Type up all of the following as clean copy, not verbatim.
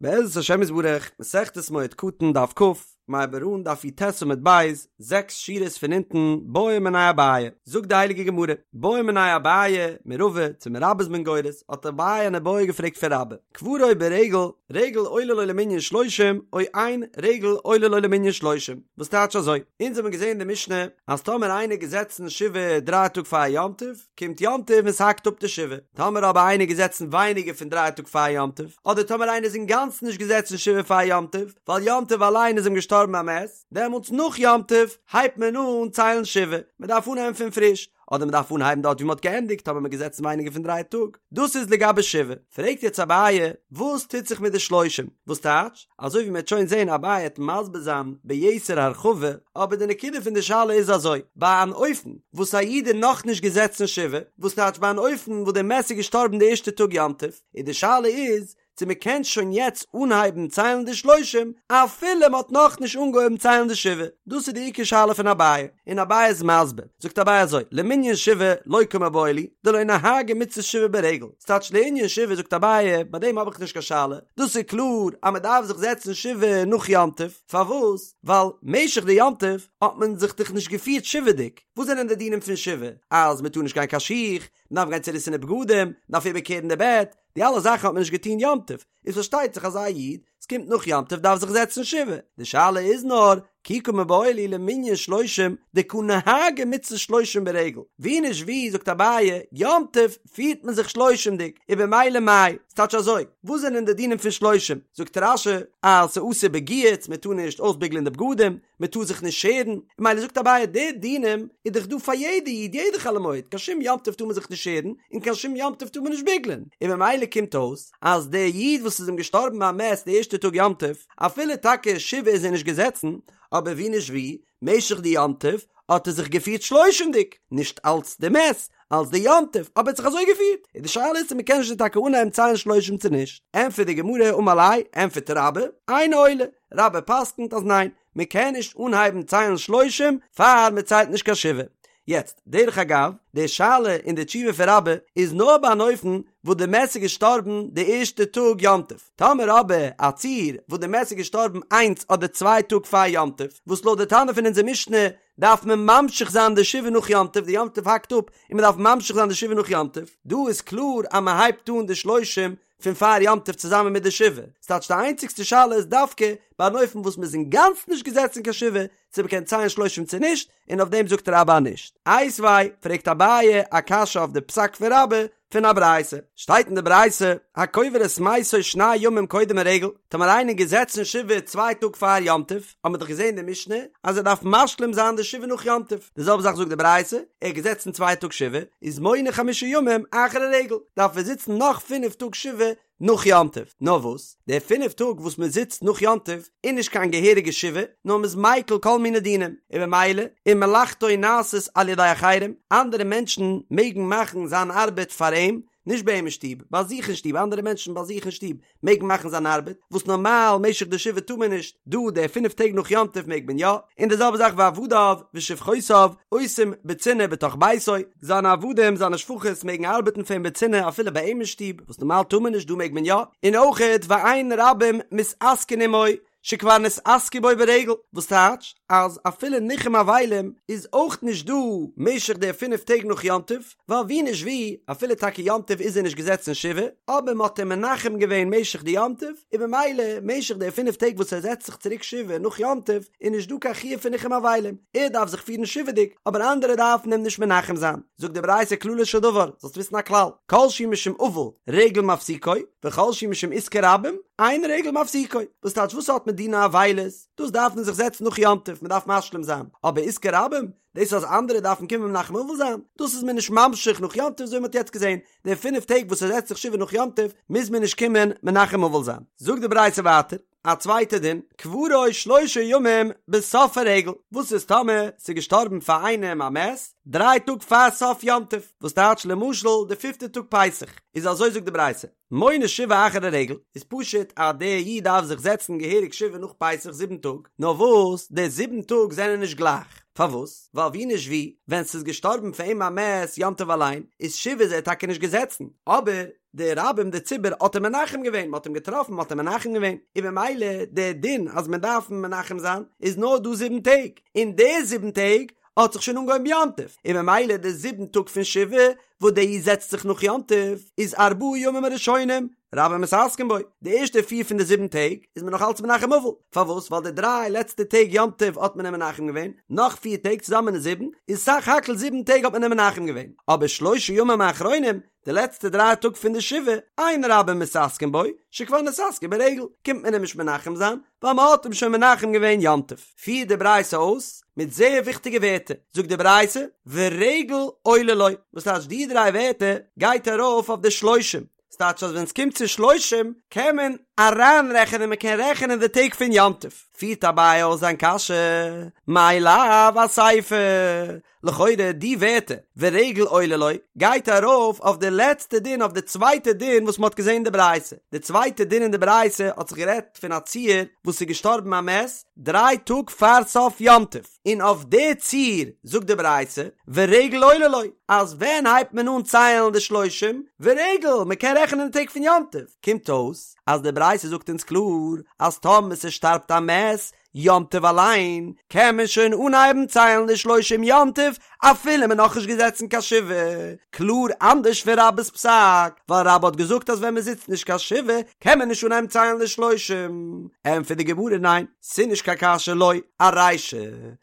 בעזרת השם יתברך, מסכת מועד קטן דף כ, מ'הייבט אן דף י"ט עמוד ב', זעקס שורות פון אונטן, בעא מיניה אביי, זאגט די הייליגע גמרא, בעא מיניה אביי מרבא, צו מרבה איז מען גורס, האט אביי אן איבעיא געפרעגט פון רבה, קברו ברגל, רגל עולה לו למנין שלושים, או אין רגל עולה לו למנין שלושים, וואס טייטש אזוי? אונז האבן געזען אין די משנה אז טאמער איינער געזעצן שבעה דריי טאג פאר יום טוב, קומט יום טוב און ס'האקט אפ די שבעה. טאמער אבער איינער געזעצן ווייניגער פון דריי טאג פאר יום טוב, אדער טאמער איינער איז אינגאנצן נישט געזעצן שבעה פאר יום טוב, ווייל יום טוב אליין איז אים געשטארבן א מת, דעמאלטס נאך יום טוב הייבט מען אן ציילן שבעה, מען דארף אנהייבן פון פריש, אדער מען דארף אנהייבן דארט ווי מען האט געענדיגט טאמער מען געזעצן ווייניגער פון דריי טאג. דאס איז לגבי שבעה. פרעגט יעצט אביי, וואס טוט זיך מיט די שלושים? וואס טייטש? אזוי ווי מ'עט שוין זעהן אביי העט מסביר זיין ביתר הרחבה, אבער די נקודה פון די שאלה איז אזוי, ביי אן אופן וואס א איד איז נאכנישט געזעצן שבעה, וואס טייטש ביי אן אופן וואס די מת איז געשטארבן די ערשטע טאג יום טוב, און די שאלה איז צו מ'קען שוין יעצט אנהייבן ציילן די שלושים אפילו מ'האט נאכנישט אנגעהויבן ציילן די שבעה, דאס איז די עיקר שאלה פון אביי, און אביי איז מסביר, זאגט אביי אזוי, למנין שבעה לא קמיבעיא לי, דלא נהגי מצות שבעה ברגל, ס'טייטש לענין שבעה זאגט אביי, ביי דעם האב איך נישט קיין שאלה, דאס איז קלאר אז מען דארף זיך זעצן שבעה נאך יום טוב, פארוואס? ווייל משך די יום טוב האט מען זיך דאך נישט געפירט שבעה'דיג, וואס זענען די דינים פון שבעה? אז מען טאר נישט גיין קיין שיך, מען דארף גיין צוריסענע בגדים, מען דארף איבערקערן די בעט, די אלע זאכן האט מען נישט געטון יום טוב, איז פארשטייט זיך אז א איד, ס'קומט נאך יום טוב דארף זיך זעצן שבעה, די שאלה איז נאר, כי קא מיבעיא לי למנין שלושים דקא נהגי מצות שלושים ברגל, ווי נישט ווי זאגט אביי, יום טוב פירט מען זיך שלושים'דיג, און במילא מאי, ס'טייטש אזוי, וואס זענען די דינים פון שלושים? זאגט רש"י אז ס'אסור בגיהוץ, מ'טאר נישט אויסביגלען די בגדים, מען טאר זיך נישט שערן, ממילא זאגט אביי די דינים איז דאך דא פאר יעדע איד יעדע חול המועד, קיין שום יום טוב טאר מען זיך נישט שערן, און קיין שום יום טוב טאר מען נישט ביגלען, און ממילא קומט אויס אז דער איד וואס איז אים געשטארבן א מת די ערשטע טאג יום טוב, אפילו טאקע שבעה איז ער נישט געזעצן, אבער ווי נישט ווי, משך די יום טוב האט ער זיך געפירט שלושים'דיג, נישט אלץ די מת, אלץ די יום טוב, אבער ער האט זיך אזוי געפירט, און די שאלה איז צו מען קען שוין טאקע אנהייבן ציילן שלושים צו נישט, ענטפערט די גמרא אמר ליה, ענטפערט רבה, אינו עולה, רבה פסק'נט אז ניין, מען קען נישט אנהייבן ציילן שלושים פאר מען ציילט נישט קיין שבעה. יעצט, דרך אגב, די שאלה און די תשובה פון רבה איז נאר ביי אן אופן וואס די מת איז געשטארבן די ערשטע טאג יום טוב. טאמער אבער א ציור וואס די מת איז געשטארבן איינס אדער צוויי טאג פאר יום טוב, וואס לויט די תנא פון אונזער משנה דארף מען ממשיך זיין די שבעה נאך יום טוב, די יום טוב האקט אפ און מען דארף ממשיך זיין די שבעה נאך יום טוב, דא איז קלאר אז מען הייבט אן די שלושים פון פאר יום טוב צוזאמען מיט די שבעה, ס'טייטש די איינציגסטע שאלה איז דווקא ביי אן אופן וואס מ'איז אינגאנצן נישט געזעצן קיין שבעה, צו מ'קען ציילן שלושים צו נישט, און אויף דעם זאגט רבה נישט. איתיביה, פרעגט אביי א קשיא אויף די פסק פון רבה פון א ברייתא, שטייט אין די ברייתא, הקובר את מתו שני ימים קודם הרגל, טאמער איינער געזעצן שבעה צוויי טאג פאר יום טוב, האט מען דאך געזען אין די משנה אז ער דארף משלים זיין די שבעה נאך יום טוב, די זעלבע זאך זאגט די ברייתא, ער האט געזעצן צוויי טאג שבעה, איז מונה חמשה ימים אחר הרגל, דארף ער זיצן נאך פינף טאג שבעה נאך יום טוב, נאר וואס, די פינף טאג וואס מען זיצט נאך יום טוב איז נישט קיין געהעריגע שבעה, נאר מען איז מיקל כל מיני דינים, און במילא, ומלאכתו נעשית על ידי אחרים, אנדערע מענטשן מעגן מאכן זיין ארבעט פאר אים, נישט ביי אים אין שטוב, ביי זיך אין שטוב, אנדערע מענטשן ביי זיך אין שטוב מעגן מאכן זיין ארבעט, וואס נארמאל משך די שבעה טאר מען נישט, דא די פינף טעג נאך יום טוב מעג מען יא, און די זעלבע זאך ועבדיו ושפחותיו עושים בצנעה בתוך ביתו, זיינע עבדים זיינע שפחות מעגן ארבעטן פאר אים בצנעה אפילו ביי אים אין שטוב, וואס נארמאל טאר מען נישט דא מעג מען יא, און אויכעט ואין רבים מתעסקין עמו, שכבר נתעסקו בו ברגל, וואס טייטש אז אפילו ניחום אבלים איז אויך נישט דא משך די פינף טעג נאך יום טוב, ווייל ווי נישט ווי, אפילו טאקע יום טוב איז ער נישט געזעצן שבעה, אבער מען האט אים מנחם געווען משך די יום טוב, און במילא משך די פינף טעג וואס ער זעצט זיך צוריק שבעה נאך יום טוב, איז נישט דא קיין חיוב פון ניחום אבלים, ער דארף זיך פירן שבעה'דיג, אבער אנדערע דארפן אים נישט מנחם זיין. זאגט די ברייתא כללו של דבר, זאלסט וויסן א כלל, כל שהוא משום אבל, רגל מפסיקו, וכל שהוא משום עסקי רבים, אין רגל מפסיקו. וואס טייטש וואס האט מיט דיני אבילות? דאס דארף מען זיך זעצן נאך יום טוב, מען דארף משלים זיין. אבער עסקי רבים, דאס אז אנדערע דארפן קומען מנחם אבל זיין, דאס איז מען נישט ממשיך נאך יום טוב אזוי ווי מען האט יעצט געזען, די פינף טעג וואס ער זעצט זיך שבעה נאך יום טוב, מוז מען נישט קומען מנחם אבל זיין. זאגט די ברייתא ווייטער. א צווייטע דין, קברו שלושה ימים בסוף הרגל, וואס איז טאמער ס'איז געשטארבן פאר איינעם א מת דריי טאג פאר סוף יום טוב, וואס טייטש למשל די פיפטע טאג פסח, איז אזוי זאגט די ברייתא, מונה שבעה אחר הרגל, איז פשוט אז דער איד דארף זיך זעצן געהעריג שבעה נאך פסח זיבן טאג, נאר וואס די זיבן טאג זענען נישט גלייך. פארוואס? ווייל ווי נישט ווי, ווען ס'איז געשטארבן פאר אים א מת יום טוב אליין, איז שבעה איז ער טאקע נישט געזעצן, אבער די רבים די ציבור האט אים מנחם געווען, מ'האט אים געטראפן מ'האט אים מנחם געווען, און ממילא די דין אז מען דארף אים מנחם זיין איז נאר דא זיבן טעג, און די זיבן טעג האט זיך שוין אנגעהויבן יום טוב, און ממילא די זיבן טאג פון שבעה וואס די זעצט זיך נאך יום טוב איז ארבעה ימים הראשונים רבים מתעסקין בו, די ערשטע פיר פון די זיבן טעג איז מען נאך אלץ מנחם אבל, פארוואס? ווייל די דריי לעצטע טעג יום טוב האט מען אים מנחם געווען, נאך פיר טעג צוזאמען איז זיבן, איז סך הכל זיבן טעג האט מען אים מנחם געווען, אבער שלושה ימים האחרונים, די לעצטע דריי טאג פון די שבעה, אין רבים מתעסקין בו, שכבר נתעסקו ברגל, קומט מען אים נישט מנחם זיין, ווייל מען האט אים שוין מנחם געווען יום טוב. פירט די ברייתא אויס מיט זייער וויכטיגע ווערטער, זאגט די ברייתא, ורגל עולה לו, וואס טייטש די דריי ווערטער גייט ארויף אויף די שלושים, ס'טייטש אז ווען ס'קומט צו שלושים קען מען אריינרעכענען מען קען רעכענען די טעג פון יום טוב. פירט אביי אויס זיין קשיא, מאי לאו אסיפא, לכאורה די ווערטער ורגל עולה לו גייט ארויף אויף די לעצטע דין אויף די צווייטע דין וואס מ'האט געזען אין די ברייתא, די צווייטע דין אין די ברייתא האט זיך גערעדט פון א ציור וואס איז געשטארבן א מת דריי טאג פאר סוף יום טוב, און אויף די ציור זאגט די ברייתא ורגל עולה לו אז ווען הייבט מען אן ציילן די שלושים ורגל מ'קען רעכענען די טעג פון יום טוב, קומט אויס אז די ברייתא זאגט אונז קלאר אז טאמער ס'שטארבט א מת יום טוב אליין קען מען שוין אנהייבן ציילן די שלושים יום טוב אפילו מען נאכנישט געזעצן קיין שבעה, קלאר אנדערש פון רבה'ס פסק, ווייל רבה האט געזאגט אז ווען מען זיצט נישט קיין שבעה קען מען נישט אנהייבן ציילן די שלושים, ענטפערט די גמרא ניין, ס'נישט קיין קשיא לא, ארישא,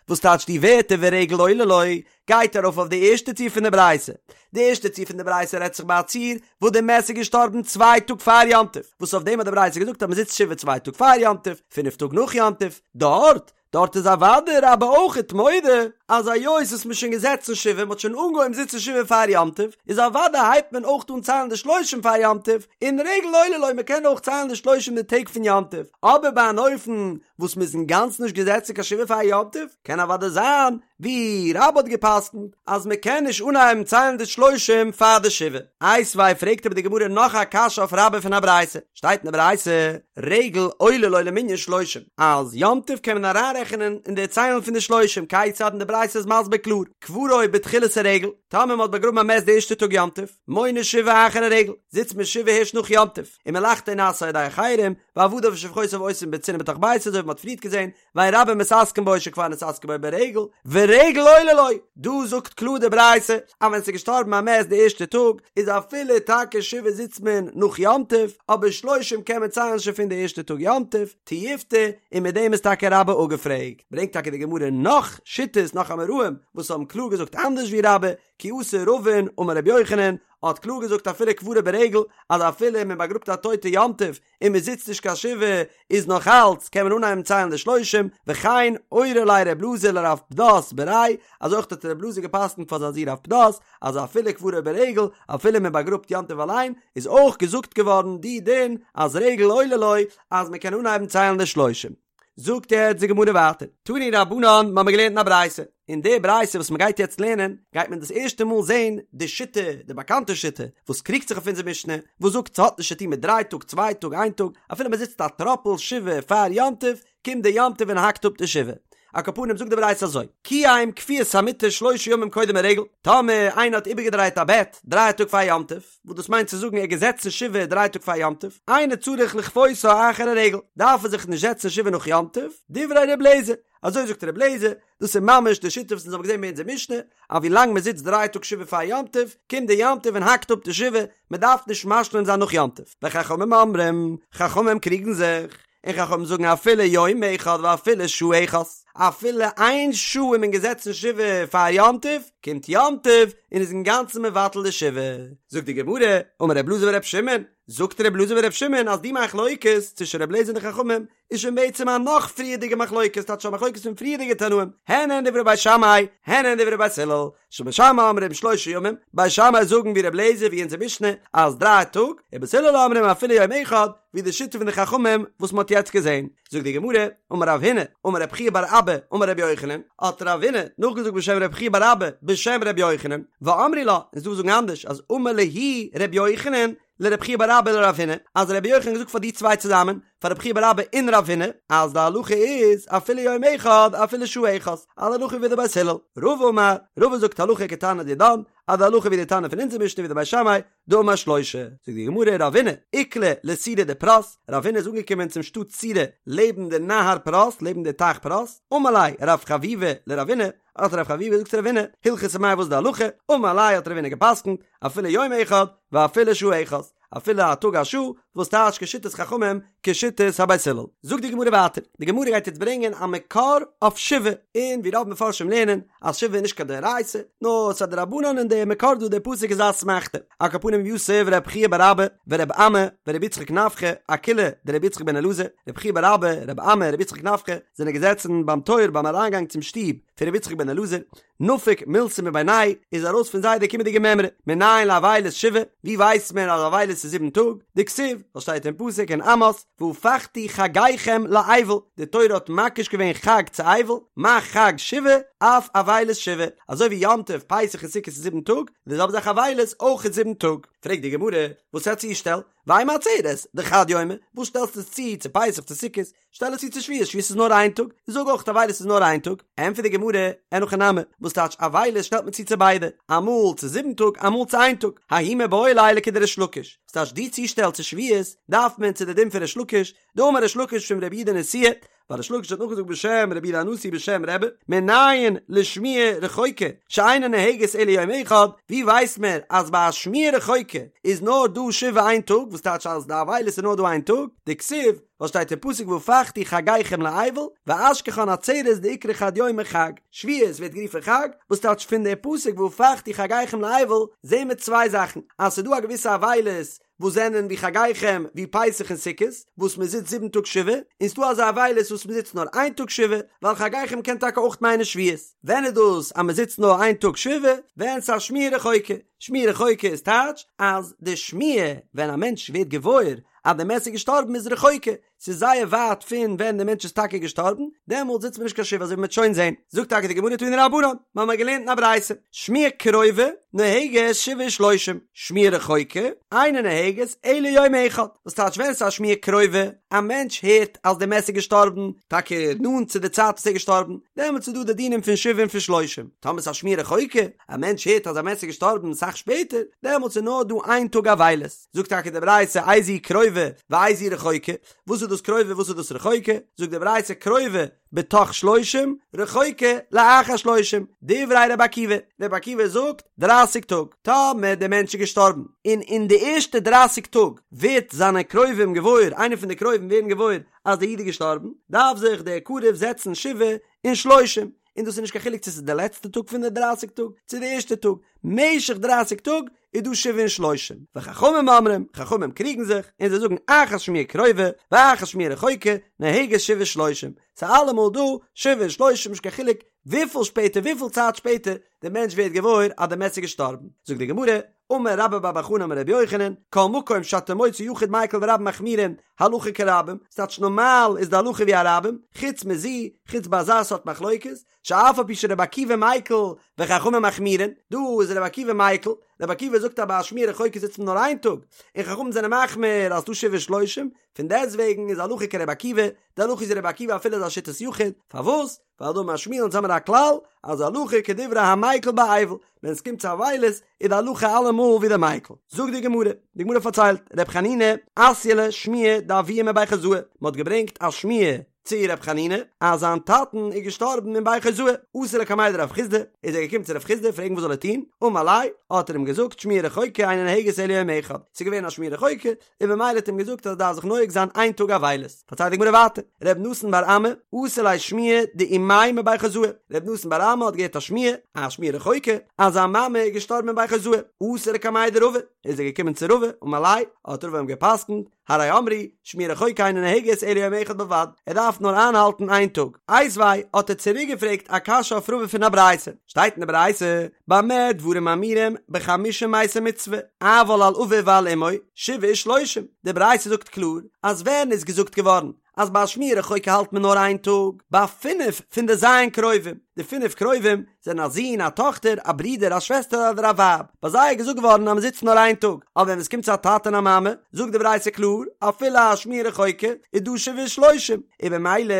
וואס טייטש די ווערטער ורגל עולה לו, גייט ארויף אויף די ערשטע ציור פון די ברייתא. די ערשטע ציור פון די ברייתא רעדט זיך ביי א ציור וואס די מת איז געשטארבן צוויי טאג פאר יום טוב, וואס אויף דעם האט די ברייתא געזאגט אז מען זיצט שבעה צוויי טאג פאר יום טוב, פינף טאג נאך יום טוב. דארט, דארט איז אוודאי רבה אויכעט מודה אז היות וואס מען איז שוין געזעצן שבעה, מען האט שוין אנגעהויבן זיצן שבעה פאר יום טוב, איז אוודאי הייבט מען אויך אן ציילן די שלושים פאר יום טוב, און רגל עולה לו מען קען אויך ציילן די שלושים די טעג פון יום טוב, אבער ביי אן אופן וואס מען איז אינגאנצן נישט געזעצן קיין שבעה פאר יום טוב, קען אוודאי זיין ווי רבה האט געפסקנט אז מען קען נישט אנהייבן ציילן די שלושים פאר די שבעה. איתיביה פרעגט אבער די גמרא נאך א קשיא אויף רבה פון א ברייתא, שטייט אין די ברייתא רגל עולה לו למנין שלושים אז יום טוב קען מען אריינרעכענען אין די ציילן פון די שלושים, כיצד און די ברייתא איז מסביר קלאר, קברו בתחילת הרגל, טאמער מען האט באגראבן א מת די ערשטע טאג יום טוב, מונה שבעה אחר הרגל, זיצט מען שבעה הערשט נאך יום טוב, ומלאכתו נעשית על ידי אחרים, ועבדיו ושפחותיו עושים בצנעה בתוך ביתו אזוי ווי מען האט פריערט געזען, ואין רבים מתעסקין בו שכבר נתעסקו בו ברגל, ורגל עולה לו, דא זאגט קלאר די ברייתא אז ווען ס'איז געשטארבן א מת די ערשטע טאג, איז אפילו טאקע שבעה זיצט מען נאך יום טוב, אבער שלושים קען מען ציילן שוין פון די ערשטע טאג יום טוב, תיובתא, און מיט דעם איז טאקע רבה אפגעפרעגט. ברענגט טאקע די גמרא נאך שיטות נאך אמוראים וואס האבן קלאר געזאגט אנדערש ווי רבה, כי אתא רבין אמר רבי יוחנן האט קלאר געזאגט אפילו קברו ברגל אז אפילו מען באגראבט א טויטע יום טוב און מען זיצט נישט קיין שבעה איז נאך אלץ קען מען אנהייבן ציילן די שלושים, וכן אורי ליה רב אלעזר לרב פדת בריה, אזוי אויך האט רב אלעזר געפסקנט פאר זיין זון רב פדת אז אפילו קברו ברגל אפילו מען באגראבט יום טוב אליין איז אויך געזאגט געווארן די דין אז רגל עולה לו אז מען קען אנהייבן ציילן די שלושים. זאגט יעצט די גמרא ווייטער, תנו רבנן, מ'האמיר געלערנט אין א ברייתא, אין די ברייתא וואס מ'גייט יעצט לערנען, גייט מען דאס ערשטע מאל זען די שיטה, די באקאנטע שיטה, וואס קריגט זיך אויף אונזער משנה, וואס זאגט ס'האט נישט צוטון מיט דריי טאג, צוויי טאג, איין טאג, אפילו מ'זיצט א טראפל שבעה פאר יום טוב, קומט די יום טוב און האקט אפ די שבעה. על כל פנים זאגט די ברייתא אזוי, קיים כפיית המיטה שלושה ימים קודם הרגל, טאמער איינער האט איבערגעדרייט א בעט דריי טאג פאר יום טוב, וואס דאס מיינט צו זאגן ער איז געזעצן שבעה דריי טאג פאר יום טוב, אינו צריך לכפותה אחר הרגל, דארף ער זיך נישט זעצן שבעה נאך יום טוב, דברי ר' אליעזר, אזוי זאגט ר' אליעזר, דאס איז ממש די שיטה וואס אונז האבן געזען ביי אונזער משנה, אז ווי לאנג מען זיצט דריי טאג שבעה פאר יום טוב, קומט די יום טוב און האקט אפ די שבעה, מען דארף נישט משלים זיין נאך יום טוב, וחכמים אומרים, חכמים קריגן זיך, און חכמים זאגן אפילו יום אחד ואפילו שעה אחת, אפילו איין שעה איז מען געזעצן שבעה פאר יום טוב, קומט יום טוב און איז אינגאנצן מבטל די שבעה. זאגט די גמרא, אמר ר' אלעזר בר' שמעון, זאגט ר' אלעזר בר' שמעון אז די מחלוקת צווישן ר' אליעזר און די חכמים איז שוין בעצם א נאך פריערדיגע מחלוקת, טייטש א מחלוקת פון פריערדיגע תנאים, הן הן דברי בית שמאי, הן הן דברי בית הלל, שבית שמאי אומרים שלושה ימים, בית שמאי זאגן ווי ר' אליעזר ווי אונזער משנה אז דריי טאג, ובית הלל אומרים אפילו יום אחד, ווי די שיטה פון די חכמים וואס מ'האט יעצט געזען. זאגט די גמרא, אמר רב הונא, אמר רב חייא בר אבא, אמר רבי יוחנן, האט רב הונא נאכגעזאגט בשם רב חייא בר אבא בשם רבי יוחנן, ואמרי לה, און ס'דא וואס זאגן אנדערש אז אמר להו רבי יוחנן. לרב חייא בר אבא ולרב הונא, אז רבי יוחנן האט געזאגט פאר די צוויי צוזאמען, פאר רב חייא בר אבא און רב הונא, אז די הלכה איז אפילו יום אחד אפילו שעה אחת, אז די הלכה ווי די בית הלל. רבא אמר, רבא זאגט הלכה כתנא דידן, אז די הלכה ווי די תנא פון אונזער משנה ווי די בית שמאי, דאמר שלושה. זאגט די גמרא רבינא איקלע לסורא דפרת, רבינא איז אנגעקומען צום שטאט סורא לעבן די נהר פרת, לעבן די טייך פרת, אמר ליה רב חביבא לרבינא, האט רב חביבא געזאגט צו רבינא, הלכתא מאי וואס איז די הלכה, אמר ליה האט רבינא געפסקנט, אפילו יום אחד ואפילו שעה אחת, אפילו א טאג א שעה, וואס טייטש כשיטת חכמים כשיטת הבית הלל. זאגט די גמרא ווייטער, די גמרא גייט יעצט ברענגען א מקור אויף שבעה, און ווי רוב מפרשים לערנען אז שבעה איז נישט קיין דאורייתא, נאר ס'איז א דרבנן און דער מקור דא דער פסוק איז א אסמכתא. על כל פנים יתיב רב חייא בר אבא ורב אמי ורבי יצחק נפחא אקילעא דרבי יצחק בן אלעזר, רב חייא בר אבא, רב אמי, רבי יצחק נפחא זענען געזעצן ביים טויער ביים אריינגאנג צום שטוב פון רבי יצחק בן אלעזר, נפק מילתא מבינייהו איז ארויס פון זיי די קומענדיגע מימרא, מנין לאבילות שבעה, ווי ווייסט מען אז אבילות איז זיבן טאג? דכתיב, וואס שטייט אין פסוק אין עמוס, והפכתי חגיכם לאבל, די תורה האט מקיש געווען חג צו אבל, מה חג שבעה, אף אבילות שבעה, אזוי ווי יום טוב, פסח און סוכות איז זיבן טאג, די זעלבע זאך אבילות אויך איז זיבן טאג. פרעגט די גמרא, וואס א צושטעל? ואימא עצרת, דחד יומא, וואס שטעלסטו עס צו צו פסח צו סוכות? שטעל עס צו צו שבועות, שבועות איז נאר איין טאג, זאג אויך אבילות איז נאר איין טאג, ענטפערט די גמרא, אין הכי נמי, וואס טייטש אבילות שטעלט מען צו צו ביידע, אמאל צו זיבן טאג אמאל צו איין טאג, ההוא מיבעי ליה לכדריש לקיש, וואס טייטש די צושטעל צו שבועות דארף מען צו די דין פון ריש לקיש, דאמר ריש לקיש משום רבי יהודה נשיאה, ווייל ריש לקיש האט נאכגעזאגט בשם רבי יהודה הנשיא בשם רבי, מנין לשמועה רחוקה שאינה נוהגת אלא יום אחד, ווי ווייסט מען אז ביי א שמועה רחוקה איז נאר דא שבעה איין טאג, וואס טייטש אז די אבילות איז נאר דא איין טאג, דכתיב, וואס שטייט אין פסוק והפכתי חגיכם לאבל ואשכחן עצרת דאיקרי חד יומא חג, שבועות ווערט גערופן חג, וואס טייטש פון די פסוק והפכתי חגיכם לאבל זעהן מיר צוויי זאכן, אז ס'איז דא א געוויסע אבילות וואס זענען ווי חגיכם ווי פסח און סוכות וואס מען זיצט זיבן טאג שבעה, און ס'דא אזא אבילות וואס מען זיצט נאר איין טאג שבעה, ווייל חגיכם קען טאקע אויך מיינען שבועות. ווען איז דאס אז מען זיצט נאר איין טאג שבעה? ווען ס'איז א שמועה רחוקה. שמועה רחוקה איז טייטש אז די שמועה ווען א מענטש ווערט געוואויר אז די מת איז געשטארבן איז רחוקה, ס'איז זייער ווייט פון ווען די מענטש איז טאקע געשטארבן, דעמאלט זיצט מען נישט קיין שבעה אזוי ווי מ'וועט שוין זען. זאגט טאקע די גמרא תנו רבנן, מיר האבן געלערנט אין א ברייתא, שמועה קרובה נוהגת שבעה ושלושים, שמועה רחוקה אינה נוהגת אלא יום אחד, וואס טייטש ווען ס'איז א שמועה קרובה, א מענטש הערט אז די מת איז געשטארבן, טאקע נאנט צו די צייט וואס ער איז געשטארבן, דעמאלטס איז דא די דינים פון שבעה און פון שלושים, טאמער ס'איז א שמועה רחוקה, א מענטש הערט אז א מת איז געשטארבן סאך שפעטער, דעמאלטס איז נאר דא איין טאג אבילות. זאגט טאקע די ברייתא איזו קרובה ואיזו רחוקה, וואס איז דאס קרובה וואס איז דאס רחוקה, זאגט די ברייתא קרובה בתוך שלושים, רחוקה לאחר שלושים, דברי רבי עקיבא, רבי עקיבא זאגט דרייסיג טאג, טאמער דער מענטש איז געשטארבן און אין די ערשטע דרייסיג טאג ווערט זיינע קרובים געוואויר, איינער פון די קרובים ווערן געוואויר אז דער איד איז געשטארבן, דארף זיך דער קרוב זעצן שבעה און שלושים, און דאס איז נישט קיין חילוק צו ס'איז די לעצטע טאג פון די דרייסיג טאג צו די ערשטע טאג, משך דרייסיג טאג איז דא שבעה און שלושים, וחכמים אומרים, חכמים קריגן זיך, און זיי זאגן אחת שמועה קרובה ואחת שמועה רחוקה, נוהגת שבעה ושלושים, ס'איז אלעמאל דא שבעה און שלושים נישט קיין חילוק וויפיל שפעטער וויפיל צייט שפעטער די מענטש ווערט געוואויר אז די מת איז געשטארבן, זאגט די גמרא, אמר רבה בר בר חנה אמר רבי יוחנן, כל מקום שאתה מוצא יחיד מיקל ורבים מחמירין, הלכה כרבים, ס'טייטש נארמאל איז די הלכה ווי א רבים, חוץ מזו, חוץ ביי אזא סארט מחלוקת, שאף על פי שרבי עקיבא מיקל וחכמים מחמירין, דא איז רבי עקיבא מיקל, רבי עקיבא זאגט אז ביי א שמועה רחוקה זיצט מען נאר איין טאג, און חכמים זענען מחמיר אז ס'דא שבעה ושלושים, פון דעסטוועגן איז הלכה כרבי עקיבא, די הלכה איז ווי רבי עקיבא אפילו איז א שיטת יחיד, פארוואס? ווייל דאמר שמואל אונז האמיר א כלל אז הלכה כדברי המיקל באבל, ווען עס קומט צו אבילות איז די הלכה אלעמאל ווי די מיקל. זאגט די גמרא, די גמרא פארציילט, ר' חנינא אתיא ליה שמועה דאבוה מבי חוזאי, מען האט געברענגט א שמועה צו ר' חנינא אז זיין טאטן איז געשטארבן אין בי חוזאי, אתא לקמיה דרב חסדא, איז ער געקומען צו רב חסדא פרעגן וואס זאל ער טון, אמר ליה, האט ער אים געזאגט שמועה רחוקה אינה נוהגת אלא יום אחד, ס'איז געווען א שמועה רחוקה, און במילא האט אים געזאגט אז ער דארף זיך נוהג זיין איין טאג אבילות. פארציילט די גמרא ווייטער, ר' נתן בר אמי, אתא ליה שמועה דאימיה מבי חוזאי, ר' נתן בר אמי האט געהערט א שמועה, א שמועה רחוקה, אז זיין מאמע איז געשטארבן אין בי חוזאי, אתא לקמיה דרבא, איז ער געקומען צו רבא, אמר ליה, האט רבא אים גע'פסק'נט, הרי אמרו, שמועה רחוקה אינה נוהגת אלא יום אחד בלבד, ער דארף נאר איינהאלטן איין טאג. איתיביה האט ער צוריק געפרעגט א קשיא אויף רבא פון א ברייתא, שטייט אין די ברייתא, במה דברים אמורים בחמשה מתי מצוה, אבל על אביו ועל אמו, שבעה ושלושים, די ברייתא זאגט קלאר אז ווען איז געזאגט געווארן אז ביי א שמועה רחוקה האלט מען נאר איין טאג, ביי פינף פון די ז' קרובים, די פינף קרובים זענען א זון, א טאכטער, א ברודער, א שוועסטער אדער א ווייב, ביי זיי איז געזאגט געווארן אז מען זיצט נאר איין טאג, אבער ווען עס קומט צו א טאטע און א מאמע, זאגט די ברייתא קלאר, אפילו א שמועה רחוקה איז דא שבעה ושלושים, און במילא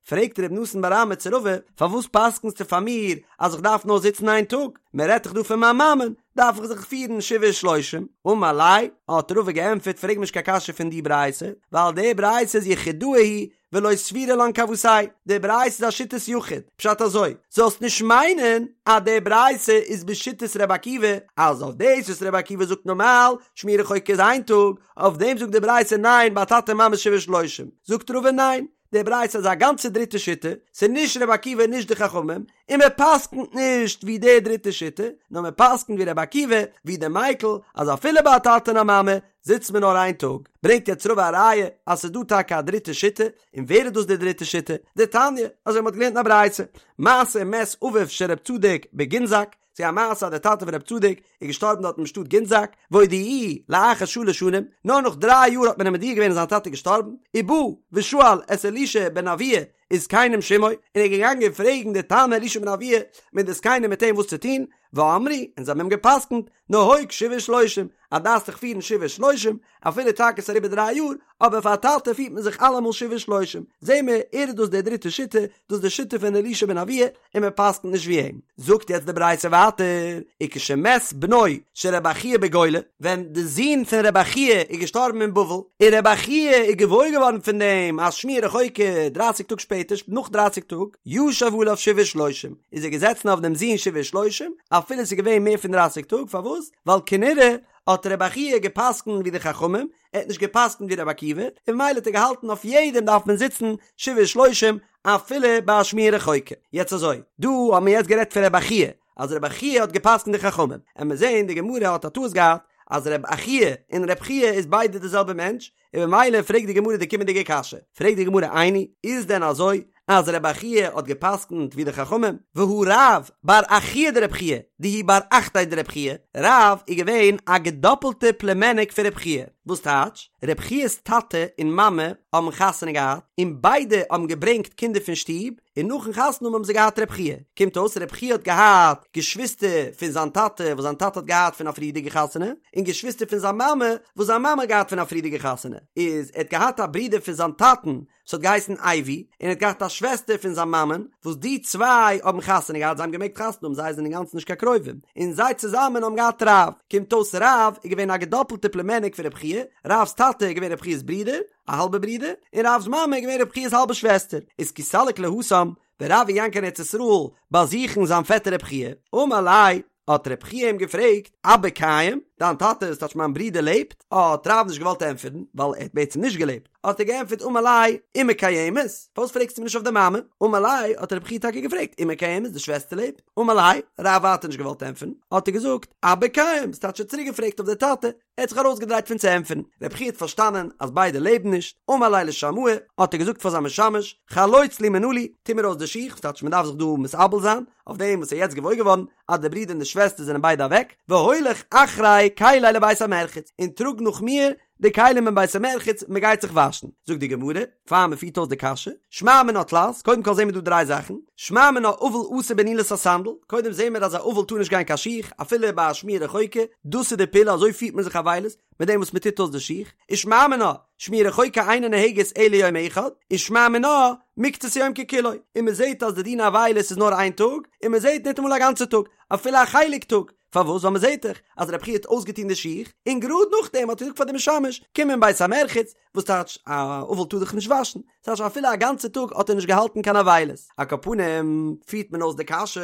פרעגט ר' נתן בר אמי צו רבא, פארוואס פסק'נסטו פאר מיר אז איך דארף נאר זיצן איין טאג? מען רעדט דאך דא פון מיין מאמען, דארף איך זיך פירן שבעה ושלושים? אמר ליה, האט רבא געענטפערט, פרעג מיר נישט קיין קשיא פון די ברייתא, ווייל די ברייתא איז יחידאה היא ולא סבירא לן כוותיה, די ברייתא איז א שיטת יחיד, פשט אזוי, זאלסט נישט מיינען אז די ברייתא איז בשיטת ר' עקיבא, אז אויף דאס וואס ר' עקיבא זאגט נארמאל, שמועה רחוקה איז איין טאג, אויף דעם זאגט די ברייתא ניין ביי טאטע מאמע שבעה ושלושים, זאגט רבא ניין, די ברייתא איז א גאנצע דריטע שיטה, ס'איז נישט רבי עקיבא און נישט די חכמים, און מען פסק'נט נישט ווי די דריטע שיטה, נאר מען פסק'נט ווי רבי עקיבא, ווי די מיקל, אז אפילו ביי א טאטע און א מאמע זיצט מען נאר איין טאג. ברענגט יעצט רבא א ראיה אז ס'איז דא טאקע א דריטע שיטה, און ווער איז דאס די דריטע שיטה? דתניא, אזוי מ'האט געלערנט אין א ברייתא, מעשה ומת אביו של רב צדוק בגינזק, ס'איז א מעשה אז דער טאטע פון רב צדוק איז געשטארבן דארט אין שטאט גינזק, והודיעוהו לאחר שלש שנים, נאר נאך דריי יאר האט מען אים מודיע געווען אז זיין טאטע איז געשטארבן, ובא ושאל את אלישע בן אבויה וזקנים שעמו, און ער איז געגאנגען פרעגן די תנא אלישע בן אבויה מיט די זקנים מיט אים וואס צו טון, ואמרו, און זיי האבן אים גע'פסק'נט, נהוג שבעה ושלושים, אז דארפסט דיך פירן שבעה ושלושים, אפילו טאקע ס'איז אריבער דריי יאר, אבער פאר א טאטע פירט מען זיך אלעמאל שבעה ושלושים, זעהן מיר, ער איז דאס די דריטע שיטה, דאס איז די שיטה פון אלישע בן אבויה, און מען פסק'נט נישט ווי אים. זאגט יעצט די ברייתא ווייטער, וכשמת בנו של רבי חייא בגולה, ווען די זון פון רבי חייא איז געשטארבן אין בבל, און רבי חייא איז געוואויר געווארן פון דעם אז שמועה רחוקה דרייסיג טאג שפעטער, נאך דרייסיג טאג, ישב עליו שבעה ושלושים, איז ער געזעצן אויף דעם זון שבעה ושלושים, אפילו עס איז געווען מער פון דרייסיג טאג, פארוואס? ווייל כנראה האט רבי חייא גע'פסק'נט ווי די חכמים, ער האט נישט גע'פסק'נט ווי רבי עקיבא, און ממילא האט ער געהאלטן אויף יעדעם דארף מען זיצן שבעה ושלושים אפילו ביי א שמועה רחוקה. יעצט אזוי, דא האבן מיר יעצט גערעדט פון רבי חייא, אז רבי חייא האט גע'פסק'נט די חכמים, עמיר זעהן די גמרא האט א טעות געהאט אז רבי אחיה און רבי חייא איז ביידע די זעלבע מענטש, און ממילא פרעגט די גמרא די קומענדיגע קשיא, פרעגט די גמרא איני, איז דען אזוי אז רבי אחיה האט גע'פסק'נט ווי די חכמים? והא רב בר אחוה דרבי חייא, דהוא בר אחתיה דרבי חייא, רב איז געווען א געדאפלטע פלומעניק פון רבי חייא, וואס טייטש? רבי חיא'ס טאטע און מאמע האבן חתונה געהאט, און ביידע האבן געברענגט קינדער פון שטוב, און נאכן חתונה האבן האבן זיי געהאט רבי חייא, קומט אויס רבי חייא האט געהאט געשוויסטער פון זיין טאטע וואס זיין טאטע האט געהאט פון א פריערדיגע חתונה, און געשוויסטער פון זיין מאמע וואס זיין מאמע האט געהאט פון א פריערדיגע חתונה, איז ער האט געהאט א ברודער פון זיין טאטן וואס האט געהייסן אייבו, און ער האט געהאט א שוועסטער פון זיין מאמען, וואס די צוויי האבן חתונה געהאט, זיי האבן געמעגט חתונה האבן, זיי זענען אינגאנצן נישט קיין קרובים, און זיי צוזאמען האבן געהאט רב, קומט אויס רב איז געווען א געדאפלטע פלומעניק פון רבי חייא, רב'ס טאטע איז געווען רבי חייא'ס ברודער, א האלבע ברודער, און רב'ס מאמע איז געווען רבי חייא'ס האלבע שוועסטער, איז כי סליק להתם, ווען רב איז געגאנגען קיין ארץ ישראל באזוכן זיין פעטער רבי חייא, אמר ליה, האט רבי חייא אים געפרעגט, אבא קיים, דיין טאטע, ס'טייטש מיין ברודער לעבט? האט רב נישט געוואלט ענטפערן, ווייל ער האט בעצם נישט געלעבט, האט ער געענטפערט אמר ליה, אמא קיימת, פארוואס פרעגסטו מיר נישט אויף די מאמע? אמר ליה, האט רבי חייא טאקע געפרעגט, אמא קיימת, די שוועסטער לעבט? אמר ליה, רב ווייטער נישט געוואלט ענטפערן, האט ער געזאגט, אבא קיים, ס'טייטש ער האט צוריק געפרעגט אויף די טאטע, ער האט זיך ארויסגעדרייט פון צו ענטפערן, רבי חייא האט פארשטאנען אז ביידע לעבן נישט, אמר ליה לשמעיה, האט ער געזאגט פאר זיין משמש, חלוץ לי מנעלי, טו מיר אויס די שיך, ס'טייטש מען דארף זיך דא מתאבל זיין, אויף דעם וואס ער איז יעצט געוואויר געווארן אז די ברודער און די שוועסטער זענען ביידע אוועק, והוליך אחרי כלי לבית המרחץ, און טראג נאך מיר די כלים אין בית המרחץ, מען גייט זיך וואשן. זאגט די גמרא, פאר מען פירט אויס די קשיא, שמע מינה תלת, קודם כל זעהן מיר דא דריי זאכן, שמע מינה אבל אסור בנעילת הסנדל, קודם זעהן מיר אז א אבל טאר נישט גיין קיין שיך, אפילו ביי א שמועה רחוקה, דאס איז די פעולה אזוי פירט מען זיך אבילות, מיט דעם וואס מען טוט אויס די שיך, ושמע מינה, שמועה רחוקה אינה נוהגת אלא יום אחד, ושמע מינה, מקצת היום ככולו, און מען זעהט אז די דין אבילות איז נאר איין טאג, און מען זעהט ניטאמאל א גאנצע טאג, אפילו א חלק טאג, פארוואס? ווייל מען זעט דאך אז רבי חייא האט אויסגעטון די שיך, און גראד נאכדעם האט ער געזאגט פאר די משמש, קום אין בית המרחץ, וואס טייטש, א אבל טאר זיך נישט וואשן, ס'טייטש אפילו א גאנצע טאג האט ער נישט געהאלטן קיין אבילות. על כל פנים, פירט מען אויס די קשיא,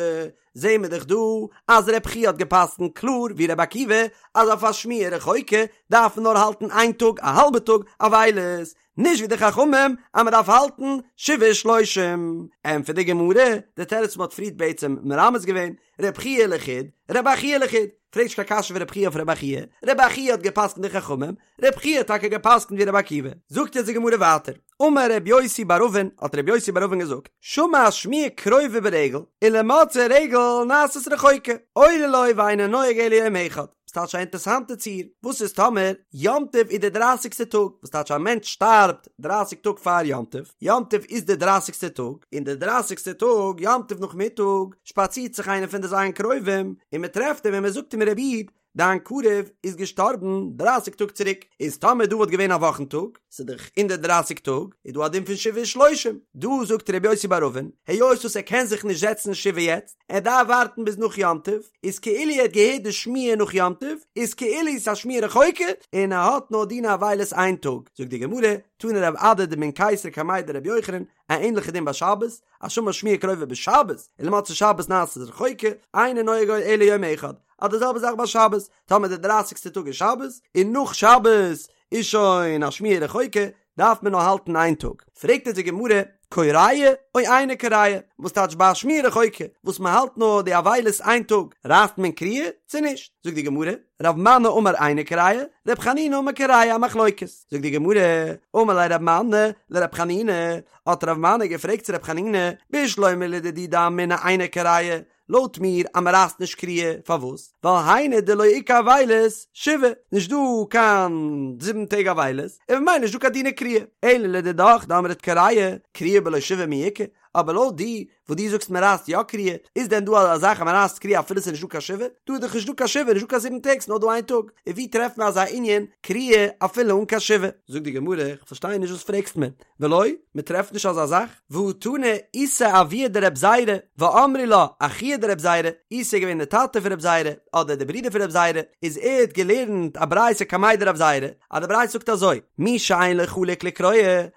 זעהן מיר דאך דא אז רבי חייא האט גע'פסק'נט קלאר ווי רבי עקיבא, אז אויף א שמועה רחוקה דארף מען נאר האלטן איין טאג, א האלבע טאג, אבילות, נישט ווי די חכמים אז מען דארף האלטן שבעה ושלושים. ענטפערט די גמרא, די תירוץ וואס מען האט פריערט בעצם מרמז געווען, רב חייא לחוד, רבי אחיה לחוד, פרעג נישט קיין קשיא פון רב חייא אויף רבי אחיה, רבי אחיה האט געפסקנט די חכמים, רב חייא האט טאקע געפסקנט ווי רבי עקיבא. זאגט יעצט די גמרא ווייטער, אמר רבי יוסי בר אבין, האט רבי יוסי בר אבין געזאגט, שמע שמועה קרובה ברגל, ולמצאי רגל נעשית רחוקה, אוי לו ואינו נוהג אלא יום אחד. ס'טייטש א אינטערסאנטע ציור, וואס איז טאמער יום טוב איז די דרייסיגסטע טאג, וואס טייטש א מענטש שטארבט דרייסיג טאג פאר יום טוב, יום טוב איז די דרייסיגסטע טאג, און די דרייסיגסטע טאג יום טוב נאכמיטאג שפאצירט זיך איינער פון די ז' קרובים און מען טרעפט אים און מען זאגט אים רבי איד, דיין קרוב איז געשטארבן דרייסיג טאג צוריק, איז טאמער דא וואלט געווען א וואכן טאג, ס'איז דאך אין די דרייסיג טאג, איז דא א דין פון שבעה ושלושים, דא זאגט ר' יוסי בר אבין, היות וואס ער קען זיך נישט זעצן שבעה יעצט, ער דארף ווארטן ביז נאך יום טוב, איז כאילו ער האט געהערט די שמועה נאך יום טוב, איז כאילו ס'איז א שמועה רחוקה, און ער האט נאר דיני אבילות איין טאג, זאגט די גמרא, תני רב אדא דמן קיסר קמיה דרבי יוחנן, א ענליכע דין ביי שבת, השמע שמועה קרובה בשבת, ולמוצאי שבת נעשית רחוקה, אינו נוהג אלא יום אחד, אז די זעלבע זאך ביי שבת, טאמער די דרייסיגסטע טאג איז שבת, און נאך שבת איז שוין א שמועה רחוקה, דארף מען נאר האלטן איין טאג. פרעגט אונז די גמרא, קורע או אינו קורע, וואס טייטש ביי א שמועה רחוקה, וואס מען האלט נאר די אבילות איין טאג, רייסט מען קריעה צו נישט? זאגט די גמרא, רב מני אמר אינו קורע, רב חנינא אמר קורע, א מחלוקת. זאגט די גמרא, אמר ליה רב מני לרב חנינא, האט רב מני געפרעגט צו רב חנינא, בשלמא לדידי דאמינא אינו קורע, לויט מיר אז מען רייסט נישט קריעה, פארוואס? ווייל היינו דלא איכא אבילות שבעה, נישט דא קיין זיבן טעג אבילות, און ממילא נישט דא קיין דיני קריעה, אלא לדידך דאמרת קורע, קריעה בלא שבעה מי איכא, אבער לויט די וואס דו זאגסט מען רייסט יא קריעה, איז דען דא אזא זאך אז מען רייסט קריעה אפילו ס'איז נישט דא קיין שבעה? דא איז דאך נישט דא קיין שבעה, נישט דא קיין זיבן טעג, ס'נאר דא איין טאג, און ווי טרעפט מען אזא ענין קריעה אפילו אן קיין שבעה? זאגט די גמרא, איך פארשטיי נישט וואס פרעגסט מיר, ולא, מען טרעפט נישט אזא זאך, והא תנא איסי אבוה דרב זירא, ואמרי לה אחוה דרב זירא, איסי איז געווען דער טאטע פון רב זירא, אדער דער ברודער פון רב זירא, איז ער האט געלערנט א ברייתא קמיה דרב זירא, אז די ברייתא זאגט אזוי, מי שאין לו חלוק לקרוע,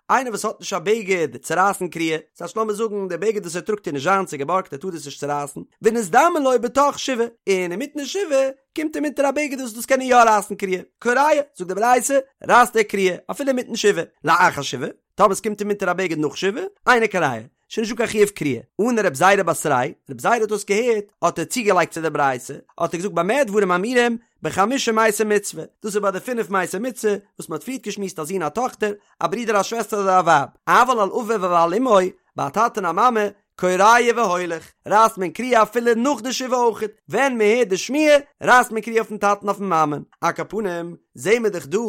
איינער וואס האט נישט א בגד צו רייסן קריעה, ס'הייסט לאמיר זאגן דער בגד וואס ער טראגט איז נישט זיינס ס'איז געבארגט ער טאר דאס נישט צורייסן, ונזדמן לו בתוך שבעה, און אינמיטן שבעה קומט אים אונטער א בגד וואס דאס קען ער יא רייסן קריעה, קורע, זאגט די ברייתא, רייסט ער קריעה, אפילו אינמיטן שבעה, לאחר שבעה, טאמער עס קומט אים אונטער א בגד נאך שבעה, אינו קורע, שוין נישטא קיין חיוב קריעה. עני רב זירא בתריה, רב זירא האט דאס געהערט, האט ער צוגעלייגט צו די ברייתא, האט ער געזאגט במה דברים אמורים, בחמשה מתי מצוה, דאס איז ביי די פינף מתי מצוה, וואס מען האט פריערט געשמועסט א זון א טאכטער, א ברודער א שוועסטער אדער א ווייב, אבל על אביו ועל אמו, ביי א טאטע און א מאמע, קורע והולך, רייסט מען קריעה אפילו נאך די שבעה אויכעט, ווען מען הערט די שמועה, רייסט מען קריעה אויפן טאטן אויפן מאמען. על כל פנים, זעהן מיר דאך דא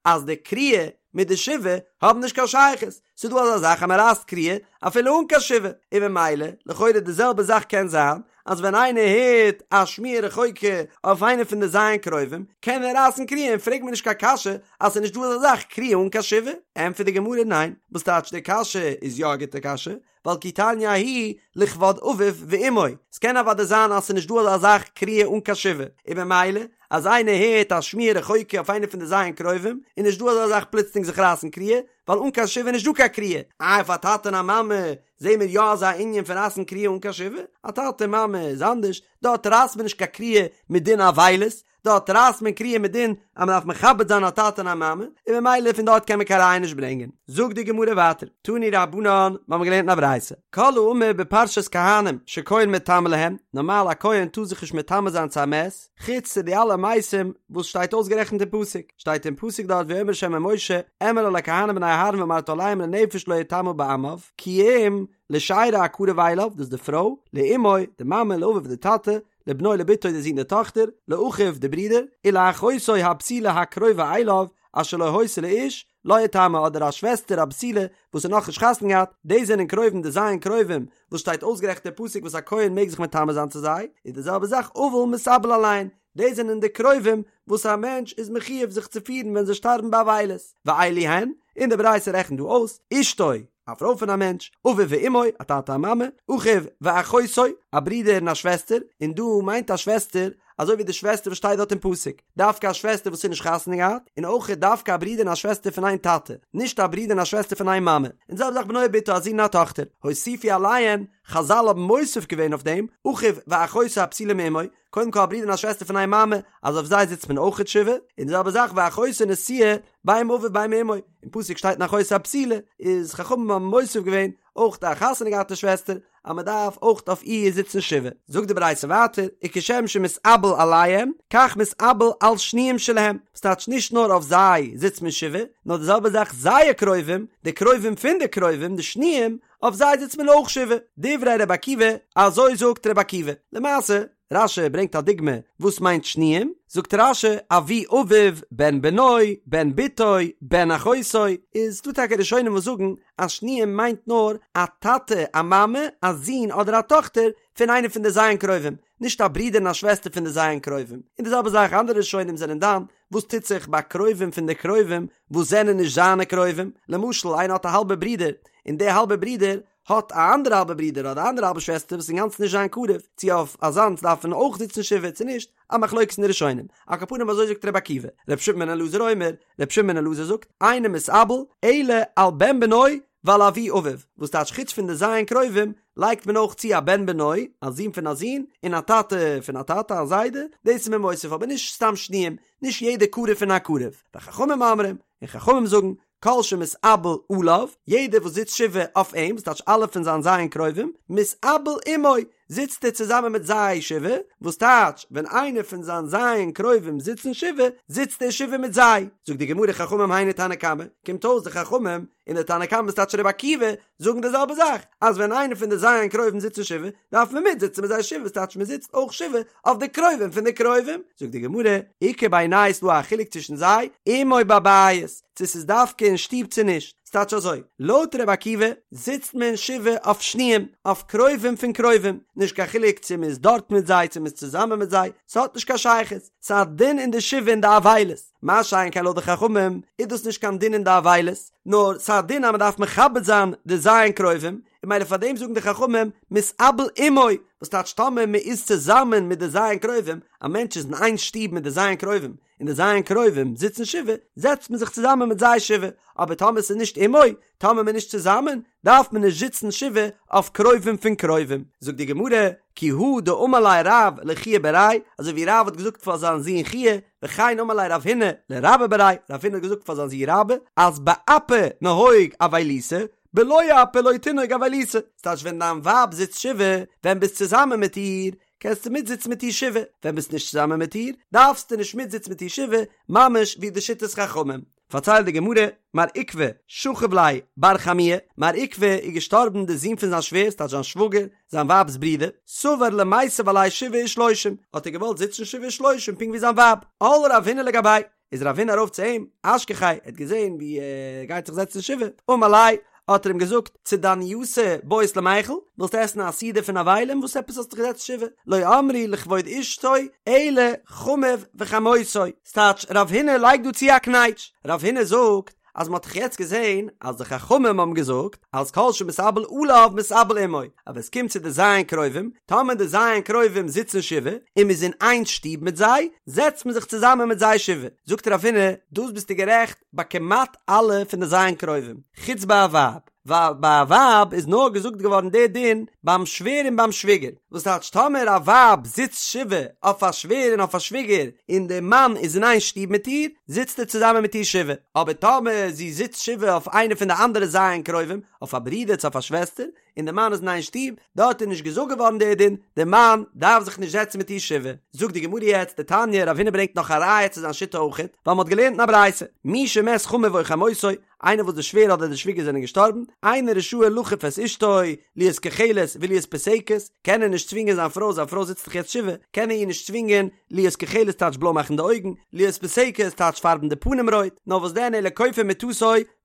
אז די קריעה מיט די שבעה האבן נישט קיין שייכות, ס'איז דא אזא זאך אז מען רייסט קריעה אפילו אן קיין שבעה, און ממילא, לכאורה די זעלבע זאך קען זיין, אז ווען איינער הערט א שמועה רחוקה אויף איינע פון די ז' קרובים, קען ער רייסן קריעה און פרעג מיר נישט קיין קשיא אז ס'איז נישט דא אזא זאך קריעה אן קיין שבעה. ענטפערט די גמרא ניין, וואס טייטש די קשיא איז יא א גוטע קשיא, ווייל כי תניא ההיא לכבוד אביו ואמו, ס'קען אוודאי זיין אז ס'איז נישט דא אזא זאך קריעה אן קיין שבעה, און ממילא אז איינער הערט א שמועה רחוקה אויף איינע פון די ז' קרובים, איז נישט דא אזא זאך פלוצלינג זיך רייסן קריעה, ווייל אן קיין שבעה איז נישט דא קיין קריעה, איי אויף א טאטע און א מאמע זעהן מיר יא אזא ענין פון רייסן קריעה אן קיין שבעה? א טאטע מאמע איז אנדערש, דארט רייסט מען נישט קיין קריעה מדין אבילות, דארט רייסט מען קריעה מדין אז מען דארף מכבד זיין א טאטע און א מאמע, און ממילא פון דארט קען מען קיין ראיה נישט ברענגען. זאגט די גמרא ווייטער, תנו רבנן, מיר האבן געלערנט אין א ברייתא, כל האמור בפרשת כהנים שכהן מטמא להם, נארמאל א כהן טאר זיך נישט מטמא זיין צו א מת, חוץ צו די אלע מתים וואס שטייט אויסגערעכנט אין פסוק, שטייט אין פסוק דארט ויאמר ה' אל משה, אמר אל הכהנים בני אהרן ואמרת אליהם לנפש לא יטמא בעמיו, כי אם לשארו הקרוב אליו, דאס איז די פרוי, לאמו, די מאמע, לאביו די טאטע, לבנו לבתו די זון די טאכטער, לאחיו די ברידער, ולאחותו הבתולה הקרובה אליו, אשר לא היתה לאיש, לה יטמא אדער א שוועסטער א בתולה וואס האט נאכנישט חתונה געהאט, דאס זענען קרובים די ז' קרובים וואס שטייט אויסגערעכנט אין פסוק וואס א כהן מעג זיך מטמא זיין צו זיי, איז די זעלבע זאך אבל מתאבל עליהן, דאס זענען די קרובים וואס א מענטש איז מחיוב זיך צו פירן ווען זיי שטארבן באבילות, ואלו הן, און די ברייתא רעכנט דא אויס, אשתו, א פרוי פון א מענטש, אביו ואמו, א טאטע א מאמע, אחיו ואחותו, א ברודער און א שוועסטער, און דא מיינט א שוועסטער אזוי ווי די שוועסטער וואס שטייט דארט אין פסוק, דווקא א שוועסטער וואס איז נישט חתונה געהאט, און אויך דווקא א ברודער און א שוועסטער פון איין טאטע, נישט א ברודער און א שוועסטער פון איין מאמע, און די זעלבע זאך בנו ובתו א זון און א טאכטער, הוסיפו עליהן, חזל האבן מוסיף געווען אויף דעם, אחיו ואחותו הבתולה מאמו, קודם כל א ברודער און א שוועסטער פון איין מאמע, אז אויף זיי זיצט מען אויכעט שבעה, און די זעלבע זאך ואחותו נשואה בין מאביו בין מאמו, אין פסוק שטייט און אחותו הבתולה, איז חכמים האבן מוסיף געווען אויך א חתונה געהאטע שוועסטער, אז מען דארף אויך אויף איר זיצן שבעה. זאגט די ברייתא ווייטער, וכשם שמתאבל עליהם, כך מתאבל על שניים שלהם, וואס טייטש נישט נאר אויף זיי זיצט מען שבעה, נאר די זעלבע זאך זייער קרובים, די קרובים פון די קרובים, די שניים, אויף זיי זיצט מען אויך שבעה. דברי ר' עקיבא, אזוי זאגט ר' עקיבא. למעשה. רש"י ברענגט א דוגמא וואס מיינט שניים, זאגט רש"י אבי אביו, בן בנו, בן בתו, בן אחותו, איז דא טאקע ראשונים וואס זאגן אז שניים מיינט נאר א טאטע, א מאמע, א זון אדער א טאכטער פון איינע פון די ז' קרובים, נישט א ברודער און א שוועסטער פון די ז' קרובים, און די זעלבע זאך אנדערע ראשונים זענען דן וואס טוט זיך ביי קרובים פון די קרובים וואס זענען נישט זיינע קרובים, למשל איינער האט א האלבע ברודער און די האלבע ברודער האט א אנדערע האלבע ברודער אדער אנדערע האלבע שוועסטער וואס איז אינגאנצן נישט זיין קרוב, צו אויף אזאנס דארף מען אויך זיצן שבעה צו נישט, א מחלוקת אין די ראשונים, על כל פנים אזוי זאגט רבי עקיבא, רבי שמעון בן אלעזר אומר, רבי שמעון בן אלעזר זאגט, אינו מתאבל אלא על בן בנו ועל אבי אביו, וואס טייטש חוץ פון די ז' קרובים לייגט מען אויך צו א בן בנו, א זון פון א זון, און א טאטע פון א טאטע, א זיידע, דאס איז מען מוסיף אבער נישט סתם שניים, נישט יעדע קרוב פון א קרוב, וחכמים אומרים, און חכמים זאגן, כל שמתאבל עליו, יעדער וואס זיצט שבעה אויף אים, וואס טייטש אלע פון זיין ז' קרובים, מתאבל עמו, זיצט ער צוזאמען מיט זיי שבעה, וואס טייטש, ווען איינער פון זיין ז' קרובים זיצן שבעה, זיצט ער שבעה מיט זיי. זאגט די גמרא חכמים היינו תנא קמא, קומט אויס די חכמים און די תנא קמא וואס טייטש רבי עקיבא, זאגן די זעלבע זאך, אז ווען איינער פון די ז' קרובים זיצן שבעה, דארף מען מיט זיצן מיט זיי שבעה, וואס טייטש מען זיצט אויך שבעה אויף די קרובים פון די קרובים. זאגט די גמרא, איכא בינייהו ס'דא א חילוק צווישן זיי, עמו בבית, צו ס'איז דווקא אין שטוב צו נישט. ס'טייטש אזוי, לויט רבי עקיבא זיצט מען שבעה אויף שניים, אויף קרובים פון קרובים, נישט קיין חילוק צו מ'איז דארט מיט זיי צו מ'איז צוזאמען מיט זיי, ס'האט נישט קיין שייכות, ס'איז א דין אין די שבעה אין די אבילות, מה שאין כן לויט די חכמים איז דאס נישט קיין דין אין די אבילות, נאר ס'איז א דין אז מ'דארף מכבד זיין די ז' קרובים, און ממילא פאר דעם זאגן די חכמים מתאבל עמו, וואס טייטש טאמער מ'איז צוזאמען מיט די ז' קרובים, א מענטש איז אין איין שטוב מיט די ז' קרובים, און די ז' קרובים זיצן שבעה, זעצט מען זיך צוזאמען מיט זיי שבעה, אבער טאמער ס'איז נישט עמו, טאמער מ'איז נישט צוזאמען, דארף מען נישט זיצן שבעה אויף קרובים פון קרובים. זאגט די גמרא, כי הא דאמר ליה רב לחייא בריה, אזוי ווי רב האט געזאגט פאר זיין זון חייא, וכן אמר ליה רב הונא לרבה בריה, רב הונא האט געזאגט פאר זיין זון רבה, אז באפי נהוג אבילותא, בלא אפי לא תנהוג אבילותא, ס'טייטש ווען דיין ווייב זיצט שבעה, ווען ביסט צוזאמען מיט איר, קענסטו מיטזיצן מיט איר שבעה, ווען ביסט נישט צוזאמען מיט איר, דארפסטו נישט מיטזיצן מיט איר שבעה, ממש ווי די שיטת חכמים. פארציילט די גמרא, מר עוקבא שכיב ליה בר חמוה, מר עוקבא איז געשטארבן די זון פון זיין שווער, ס'טייטש זיין שוואגער, זיין ווייב'ס ברודער, סבר למיתב עליה שבעה ושלושים, האט ער געוואלט זיצן שבעה ושלושים פונקט ווי זיין ווייב, על רב הונא לגביה, איז רב הונא ארויף צו אים, אשכחיה, ער האט געזען ווי ער גייט זיך זעצן שבעה, אמר ליה, האט ער אים געזאגט, צדנייתא בעית למיכל, ווילסט עסן א סעודה פון אבלים, וואס עפעס האסטו זיך געזעצט שבעה, לא אמרו לכבוד אשתו, אלא חמיו וחמותו. ס'טייטש, רב הונא לייגט דא צו א קנייטש, רב הונא זאגט, אז מ'האט דאך יעצט געזען אז די חכמים האבן געזאגט אז כל שמתאבל עליו מתאבל עמו, אז ווען ס'קומט צו די ז' קרובים, טאמער די ז' קרובים זיצן שבעה און מ'איז אין איין שטוב מיט זיי, זעצט מען זיך צוזאמען מיט זיי שבעה. זאגט רב הונא, דאס ביסטו גערעכט ביי כמעט אלע פון די ז' קרובים, חוץ ביי א ווייב. ווייל ביי א ווייב איז נאר געזאגט געווארן דער דין ביים שווער און ביים שוויגער, וואס טייטש טאמער א ווייב זיצט שבעה אויף א שווער און אויף א שוויגער און דער מאן איז אין איין שטוב מיט איר, זיצט ער צוזאמען מיט איר שבעה, אבער טאמער זי זיצט שבעה אויף איינע פון די אנדערע ז' קרובים, אויף א ברודער צו אויף א שוועסטער, און דער מאן איז אין איין שטוב, דארט איז נישט געזאגט געווארן דער דין, דער מאן דארף זיך נישט זעצן מיט איר שבעה. זאגט די גמרא יעצט, דתניא, רב הונא ברענגט נאך א ראיה צו זיין שיטה אויכעט, ווייל מען האט געלערנט אין א ברייתא, מי שמת חמיו או חמותו, איינער וואס די שווער אדער די שוויגער זענען געשטארבן, אינו רשאי לכוף את אשתו, להיות כוחלת ולהיות פוסקת, קען ער נישט צווינגען זיין פרוי, זיין פרוי זיצט דאך יעצט שבעה, קען ער איר נישט צווינגען, להיות כוחלת טייטש בלוי מאכן די אויגן, להיות פוסקת טייטש פארבן די פנים רויט, נאר וואס דען אלא כופה מטתו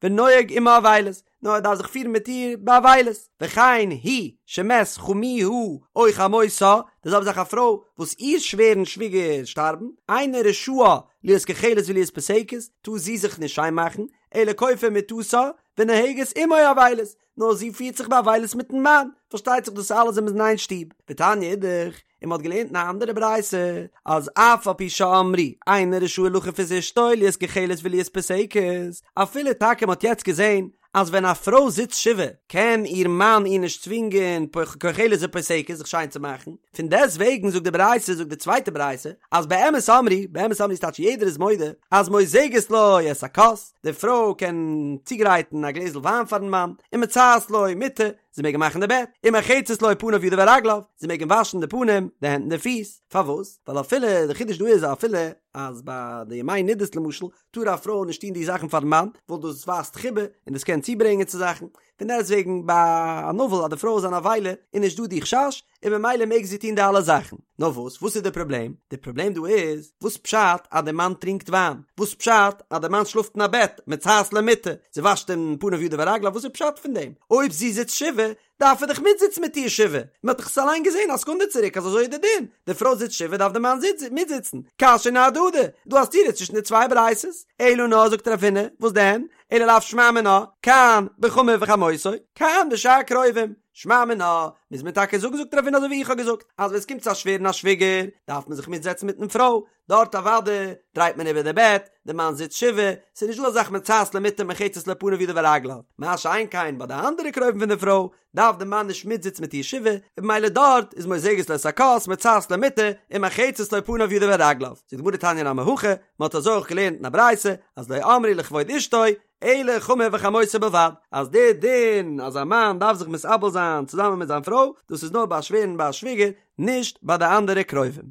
ונוהג עמה אבילות, נאר ער דארף זיך פירן מיט איר באבילות, וכן היא שמת חמיה או חמותה, די זעלבע זאך א פרוי וואס איר שווער און שוויגער שטארבן, אינה רשאה להיות כוחלת ולהיות פוסקת, טאר זי זיך נישט שיין מאכן, אלא כופה מטתה ונוהגת עמו אבילות, נאר זי פירט זיך באבילות מיטן מאן, פארשטייט זיך דאס אלעס ווען מ'איז אין איין שטוב, ותניא אידך, און מ'האט געלערנט אין א אנדערע ברייתא, אז אף על פי שאמרו אינו רשאי לכוף את אשתו להיות כוחלת ולהיות פוסקת, אפילו טאקע מ'האט יעצט געזען אז ווען א פרוי זיצט שבעה קען איר מאן איר נישט צווינגען כוחלת ופוסקת זיך שיין צו מאכן, פון דעסט וועגן זאגט די ברייתא זאגט די צווייטע ברייתא אז באמת אמרו, באמת אמרו איז טייטש יעדער איז מודה אז מוזגת לו את הכוס, די פרוי קען צוגרייטן א גלעזל וויין פארן מאן, ומצעת לו מיטה, זי מעג אים מאכן די בעט, ומרחצת לו פניו ידיו ורגליו, זי מעג אים וואשן די פנים, די הענט און די פיס, פארוואס? ווייל אפילו, די חידוש דא איז אפילו אז ביי די ימי נדות למשל, טאר א פרוי נישט טון די זאכן פארן מאן, ווייל דאס ווייזט חיבה, און דאס קען צוברענגען צו זאכן, פון דעסטוועגן ביי אן אבל אז די פרוי איז אן אבילה, איז נישט דא די חשש, און ממילא מעג זי טון די אלע זאכן. נאר וואס, וואס איז די פראבלעם? די פראבלעם דא איז, וואס פשט אז די מאן טרינקט וויין? וואס פשט אז די מאן שלאפט אין א בעט, מצאת למיטה, זי וואשט אים פניו ידיו ורגליו, וואס איז פשט פון דעם? אויב זי זיצט שבעה, דארף ער דאך מיטזיצן מיט איר שבעה, מען האט דאך עס אליין געזען א סעקונדע צוריק אז אזוי איז די דין, די פרוי זיצט שבעה דארף די מאן מיטזיצן, קשיא אהדדי, דא א סתירה צווישן די צוויי ברייתות, אלא נאר זאגט רב הונא, וואס דען? אלא לאו שמע מינה, כאן בחמיו וחמותו, כאן בשאר קרובים, שמע מינה, מוז מען טאקע זאגן זאגט רב הונא אזוי ווי איך האב געזאגט, אז ווען עס קומט צו א שווער און א שוויגער, דארף מען זיך מיטזעצן מיטן פרוי, דארט אוודאי דרייט מען איבער די בעט, די מאן זיצט שבעה, ס'איז נישט דא אזא זאך מצאת למיטה מרחצת לו פניו ידיו ורגליו, מה שאין כן ביי די אנדערע קרובים פון די פרוי, דארף די מאן נישט מיטזיצן מיט איר שבעה, און במילא דארט איז מוזגת לו את הכוס מצאת למיטה ומרחצת לו פניו ידיו ורגליו. זאגט די גמרא תניא נמי הכי, מען האט אזוי אויך געלערנט אין א ברייתא, אז לא אמרו לכבוד אשתו, אלא חמיו וחמותו בלבד, אז די דין אז א מאן דארף זיך מתאבל זיין צוזאמען מיט זיין פרוי, דאס איז נאר ביי א שווער און ביי א שוויגער, נישט ביי די אנדערע קרובים.